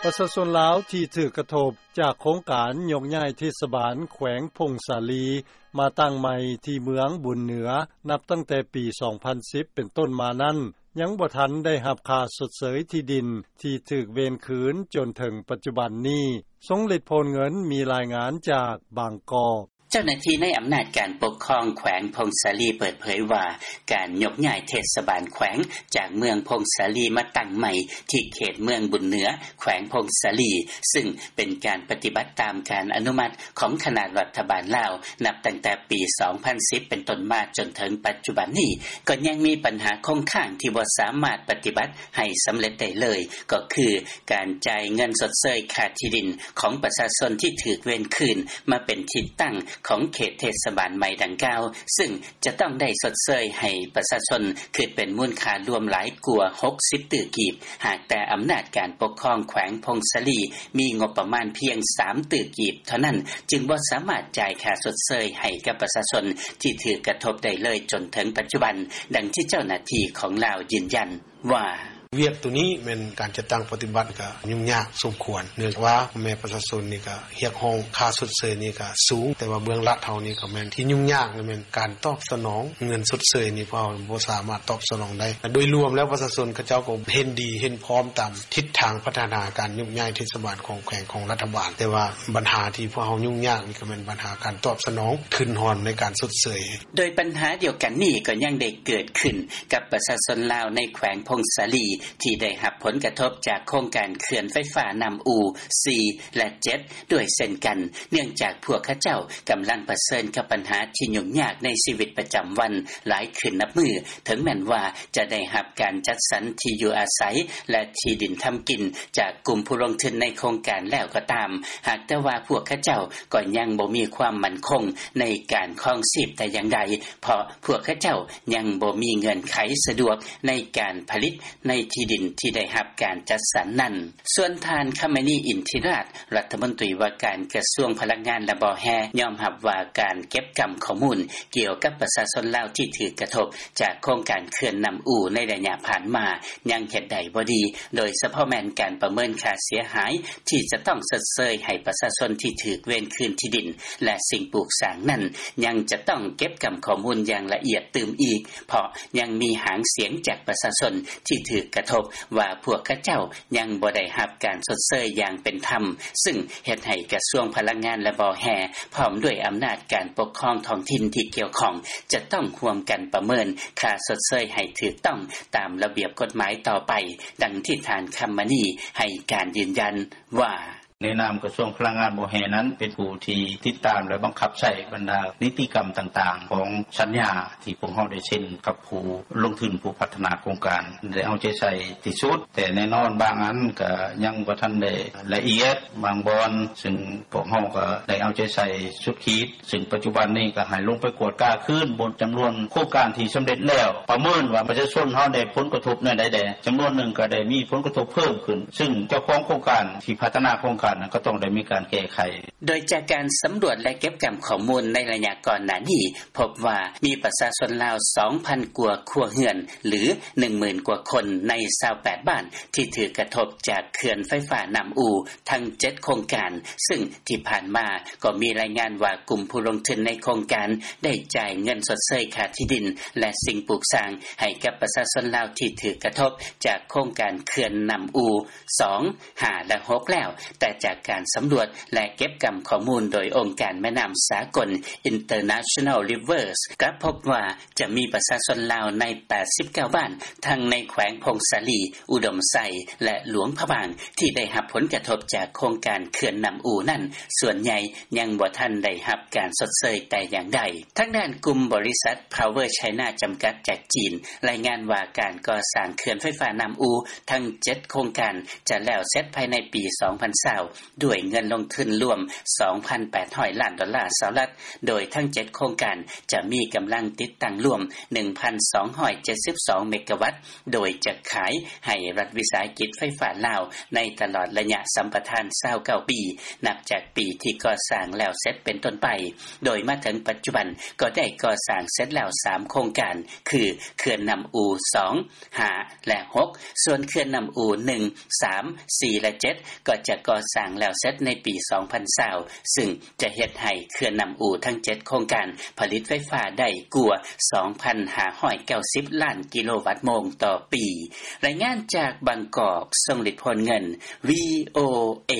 ປະຊາຊົນລາວ ທີ່ຖືກກະທົບ ຈາກໂຄງການ ຍົກຍ້າຍເທດສະບານ ແຂວງຜົ້ງສາລີ ມາຕັ້ງໃໝ່ ທີ່ເມືອງບຸນເໜືອ ນັບຕັ້ງແຕ່ປີ 2010 ເປັນຕົ້ນມານັ້ນ ຍັງບໍ່ທັນໄດ້ຮັບຄ່າຊົດເຊີຍທີ່ດິນ ທີ່ຖືກເວນຄືນ ຈົນເຖິງປັດຈຸບັນນີ້. ຊົງລິດ ໂພນເງິນ ມີລາຍງານຈາກບາງກອກ. ເຈົ້າໜ້າທີ່ໃນອຳນາດການປົກຄອງ ແຂວງຜົ້ງສາລີ ເປີດເຜີຍວ່າ ການຍົກຍ້າຍເທດສະບານແຂວງ ຈາກເມືອງຜົ້ງສາລີ ມາຕັ້ງໃໝ່ ທີ່ເຂດເມືອງບຸນເໜືອ ແຂວງຜົ້ງສາລີ ຊຶ່ງເປັນການປະຕິບັດ ຕາມການອະນຸມັດ ຂອງຄະນະລັດຖະບານລາວ ນັບຕັ້ງແຕ່ປີ 2010 ເປັນຕົ້ນມາ ຈົນເຖິງປັດຈຸບັນນີ້ ກໍຍັງມີບັນຫາຄົງຄ້າງ ທີ່ບໍ່ສາມາດປະຕິບັດ ໃຫ້ສຳເລັດໄດ້ເລີຍ ກໍຄືການຈ່າຍເງິນຊົດເຊີຍ ຄ່າທີ່ດິນ ຂອງປະຊາຊົນ ທີ່ຖືກເວນຄືນ ມາເປັນທີ່ຕັ້ງ ຂອງເຂດເທດສະບານໃໝ່ດັ່ງກ່າວ ຊຶ່ງຈະຕ້ອງໄດ້ຊົດເຊີຍ ໃຫ້ປະຊາຊົນ ຄິດເປັນມູນຄ່າລວມ ຫຼາຍກວ່າ 60 ຕື້ກີບ ຫາກແຕ່ອຳນາດການປົກຄອງ ແຂວງຜົ້ງສາລີ ມີງົບປະມານພຽງ 3 ຕື້ກີບເທົ່ານັ້ນ ຈຶ່ງບໍ່ສາມາດຈ່າຍຄ່າຊົດເຊີຍ ໃຫ້ກັບປະຊາຊົນ ທີ່ຖືກກະທົບໄດ້ເລີຍ ຈົນເຖິງປັດຈຸບັນ. ດັ່ງທີ່ເຈົ້າໜ້າທີ່ຂອງລາວ ຢືນຢັນວ່າ: ວຽກໂຕນີ້ ແມ່ນການຈັດຕັ້ງປະຕິບັດ ກະຫຍຸ້ງຍາກສົມຄວນ ເນື່ອງຈາກວ່າ ພໍ່ແມ່ປະຊາຊົນນີ້ ກະຮຽກຮ້ອງຄ່າຊົດເຊີຍນີ້ ກະສູງ ແຕ່ວ່າເບື້ອງລັດເຮົານີ້ ກະແມ່ນທີ່ຫຍຸ້ງຍາກ ແມ່ນການຕອບສະໜອງເງິນຊົດເຊີຍນີ້ ພວກເຮົາບໍ່ສາມາດຕອບສະໜອງໄດ້. ໂດຍລວມແລ້ວ ປະຊາຊົນເຂົາເຈົ້າ ກໍເຫັນດີເຫັນພ້ອມ ຕາມທິດທາງພັດທະນາການໂຍກຍ້າຍເທດສະບານ ຂອງແຂວງ ຂອງລັດຖະບານ ແຕ່ວ່າບັນຫາທີ່ພວກເຮົາຫຍຸ້ງຍາກນີ້ ກະແມ່ນບັນຫາການຕອບສະໜອງທຶນຮອນ ໃນການຊົດເຊີຍ. ໂດຍບັນຫາດຽວກັນນີ້ ກໍຍັງໄດ້ເກີດຂຶ້ນກັບປະຊາຊົນລາວ ໃນແຂວງຜົ້ງສາລີ ທີ່ໄດ້ຮັບຜົນກະທົບ ຈາກໂຄງການເຂື່ອນໄຟຟ້ານ້ຳອູ່ 4 ແລະ 7 ດ້ວຍເຊັ່ນກັນ ເນື່ອງຈາກພວກເຂົາເຈົ້າ ກຳລັງປະເຊີນກັບບັນຫາ ທີ່ຫຍຸ້ງຍາກໃນຊີວິດປະຈຳວັນ ຫຼາຍຂຶ້ນນັບມື້ ເຖິງແມ່ນວ່າຈະໄດ້ຮັບການຈັດສັນທີ່ຢູ່ອາໄສ ແລະ ທີ່ດິນທຳກິນ ຈາກກຸ່ມຜູ້ລົງທຶນໃນໂຄງການແລ້ວກໍຕາມ ຫາກແຕ່ວ່າພວກເຂົາເຈົ້າ ກໍຍັງບໍ່ມີຄວາມໝັ້ນຄົງ ໃນການຄອງຊີບແຕ່ຢ່າງໃດ ເພາະພວກເຂົາເຈົ້າຍັງບໍ່ມີເງື່ອນໄຂສະດວກ ໃນການຜະລິດ ໃນທີ່ດິນທີ່ໄດ້ຮັບການຈັດສັນນັ້ນ. ສ່ວນທ່ານ ຄຳມະນີ ອິນທິລາດ ລັດຖະມົນຕີວ່າການກະຊວງພະລັງງານ ແລະ ບໍ່ແຮ່ ຍອມຮັບວ່າ ການເກັບກຳຂໍ້ມູນ ກ່ຽວກັບປະຊາຊົນລາວ ທີ່ຖືກກະທົບ ຈາກໂຄງການເຂື່ອນນ້ຳອູ່ ໃນໄລຍະຜ່ານມາ ຍັງເຮັດໄດ້ບໍ່ດີ ໂດຍສະເພາະແມ່ນການປະເມີນຄ່າເສຍຫາຍ ທີ່ຈະຕ້ອງຊົດເຊີຍໃຫ້ປະຊາຊົນ ທີ່ຖືກເວນຄືນທີ່ດິນ ແລະ ສິ່ງປູກສ້າງນັ້ນ ຍັງຈະຕ້ອງເກັບກຳຂໍ້ມູນຢ່າງລະອຽດຕື່ມອີກ ເພາະຍັງມີຫາງສຽງຈາກປະຊາຊົນ ທີ່ຖືກກະທົບ ວ່າພວກເຂົາເຈົ້າຍັງບໍ່ໄດ້ຮັບການຊົດເຊີຍຢ່າງເປັນທຳ ຊຶ່ງເຮັດໃຫ້ກະຊວງພະລັງງານ ແລະ ບໍ່ແຮ່ ພ້ອມດ້ວຍອຳນາດການປົກຄອງທ້ອງຖິ່ນທີ່ກ່ຽວຂ້ອງ ຈະຕ້ອງຮ່ວມກັນປະເມີນຄ່າຊົດເຊີຍໃຫ້ຖືກຕ້ອງຕາມລະບຽບກົດໝາຍຕໍ່ໄປ, ດັ່ງທີ່ທ່ານ ຄຳມະນີ ໃຫ້ການຢືນຢັນວ່າ: ໃນນາມກະຊວງພະລັງງານ ບໍ່ແຮ່ນັ້ນ ເປັນຜູ້ທີ່ຕິດຕາມ ແລະ ບັງຄັບໃຊ້ບັນດານິຕິກຳຕ່າງໆ ຂອງສັນຍາທີ່ພວກເຮົາໄດ້ເຊັນກັບຜູ້ລົງທຶນ ຜູ້ພັດທະນາໂຄງການ ໄດ້ເອົາໃຈໃສ່ທີ່ສຸດ, ແຕ່ແນ່ນອນບາງອັນກະຍັງບໍ່ທັນໄດ້ລະອຽດ ບາງບ່ອນ ຊຶ່ງພວກເຮົາກະໄດ້ເອົາໃຈໃສ່ສຸດຂີດ. ຊຶ່ງປັດຈຸບັນນີ້ກະໃຫ້ລົງໄປກວດກາຄືນ ບົນຈຳນວນໂຄງການທີ່ສຳເລັດແລ້ວ ປະເມີນວ່າປະຊາຊົນເຮົາໄດ້ຜົນກະທົບແນວໃດແດ່, ຈຳນວນໜຶ່ງກະໄດ້ມີຜົນກະທົບເພີ່ມຂຶ້ນ ຊຶ່ງເຈົ້າຂອງໂຄງການທີ່ພັດທະນາໂຄງການນັ້ນ ກະຕ້ອງໄດ້ມີການແກ້ໄຂ. ໂດຍຈາກການສຳຫຼວດ ແລະ ເກັບກຳຂໍ້ມູນໃນໄລຍະກ່ອນໜ້ານີ້ ພົບວ່າມີປະຊາຊົນລາວ ສອງພັນກວ່າຄົວເຮືອນ ຫຼື ໜຶ່ງໝື່ນກວ່າຄົນ ໃນ ຊາວແປດບ້ານ ທີ່ຖືກກະທົບຈາກເຂື່ອນໄຟຟ້ານ້ຳອູ່ ທັງເຈັດໂຄງການ, ຊຶ່ງທີ່ຜ່ານມາກໍມີລາຍງານວ່າ ກຸ່ມຜູ້ລົງທຶນໃນໂຄງການໄດ້ຈ່າຍເງິນຊົດເຊີຍຄ່າທີ່ດິນ ແລະ ສິ່ງປູກສ້າງໃຫ້ກັບປະຊາຊົນລາວທີ່ຖືກກະທົບຈາກໂຄງການເຂື່ອນນ້ຳອູ່ ສອງ, ຫ້າ ແລະ ຫົກ ແລ້ວ, ແຕ່ຈາກການສຳຫຼວດ ແລະ ເກັບກຳຂໍ້ມູນໂດຍອົງການແມ່ນ້ຳສາກົນ International Rivers ກັບພົບວ່າ ຈະມີປະຊາຊົນລາວໃນ ແປດສິບເກົ້າບ້ານ ທັງໃນແຂວງຜົ້ງສາລີ, ອຸດົມໄຊ ແລະ ຫຼວງພະບາງ ທີ່ໄດ້ຮັບຜົນກະທົບຈາກໂຄງການເຂື່ອນນ້ຳອູ່ນັ້ນ ສ່ວນໃຫຍ່ຍັງບໍ່ທັນໄດ້ຮັບການຊົດເຊີຍແຕ່ຢ່າງໃດ. ທາງດ້ານກຸ່ມບໍລິສັດ Power China ຈຳກັດ ຈາກຈີນ ລາຍງານວ່າການກໍ່ສ້າງເຂື່ອນໄຟຟ້ານ້ຳອູ່ທັງເຈັດໂຄງການ ຈະແລ້ວເສັດພາຍໃນປີສອງພັນຊາວ ດ້ວຍເງິນລົງທຶນລວມ ສອງພັນແປດຮ້ອຍລ້ານໂດລາສະຫະລັດ ໂດຍທັງເຈັດໂຄງການຈະມີກຳລັງຕິດຕັ້ງລວມ ໜຶ່ງພັນສອງຮ້ອຍເຈັດສິບສອງເມກະວັດ ໂດຍຈະຂາຍໃຫ້ລັດວິສາຫະກິດໄຟຟ້າລາວ ໃນຕະຫຼອດໄລຍະສຳປະທານ ຊາວເກົ້າປີ ນັບຈາກປີທີ່ກໍ່ສ້າງແລ້ວເສັດເປັນຕົ້ນໄປ, ໂດຍມາເຖິງປັດຈຸບັນກໍໄດ້ກໍ່ສ້າງເສັດແລ້ວສາມໂຄງການ ຄື ເຂື່ອນນ້ຳອູ່ສອງ ຫ້າ ແລະ ຫົກ ສ່ວນເຂື່ອນນ້ຳອູ່ໜຶ່ງ ສາມ ສີ່ ແລະ ເຈັດ ກໍຈະກໍ່ສ້າງແລ້ວເສັດໃນປີສອງພັນຊາວ ຊຶ່ງຈະເຮັດໃຫ້ເຂື່ອນນ້ຳອູ່ທັງເຈັດໂຄງການຜະລິດໄຟຟ້າໄດ້ກວ່າສອງພັນຫ້າຮ້ອຍເກົ້າສິບລ້ານກິໂລວັດໂມງຕໍ່ປີ. ລາຍງານຈາກບາງກອກ ຊົງລິດ ໂພນເງິນ ວີໂອເອ.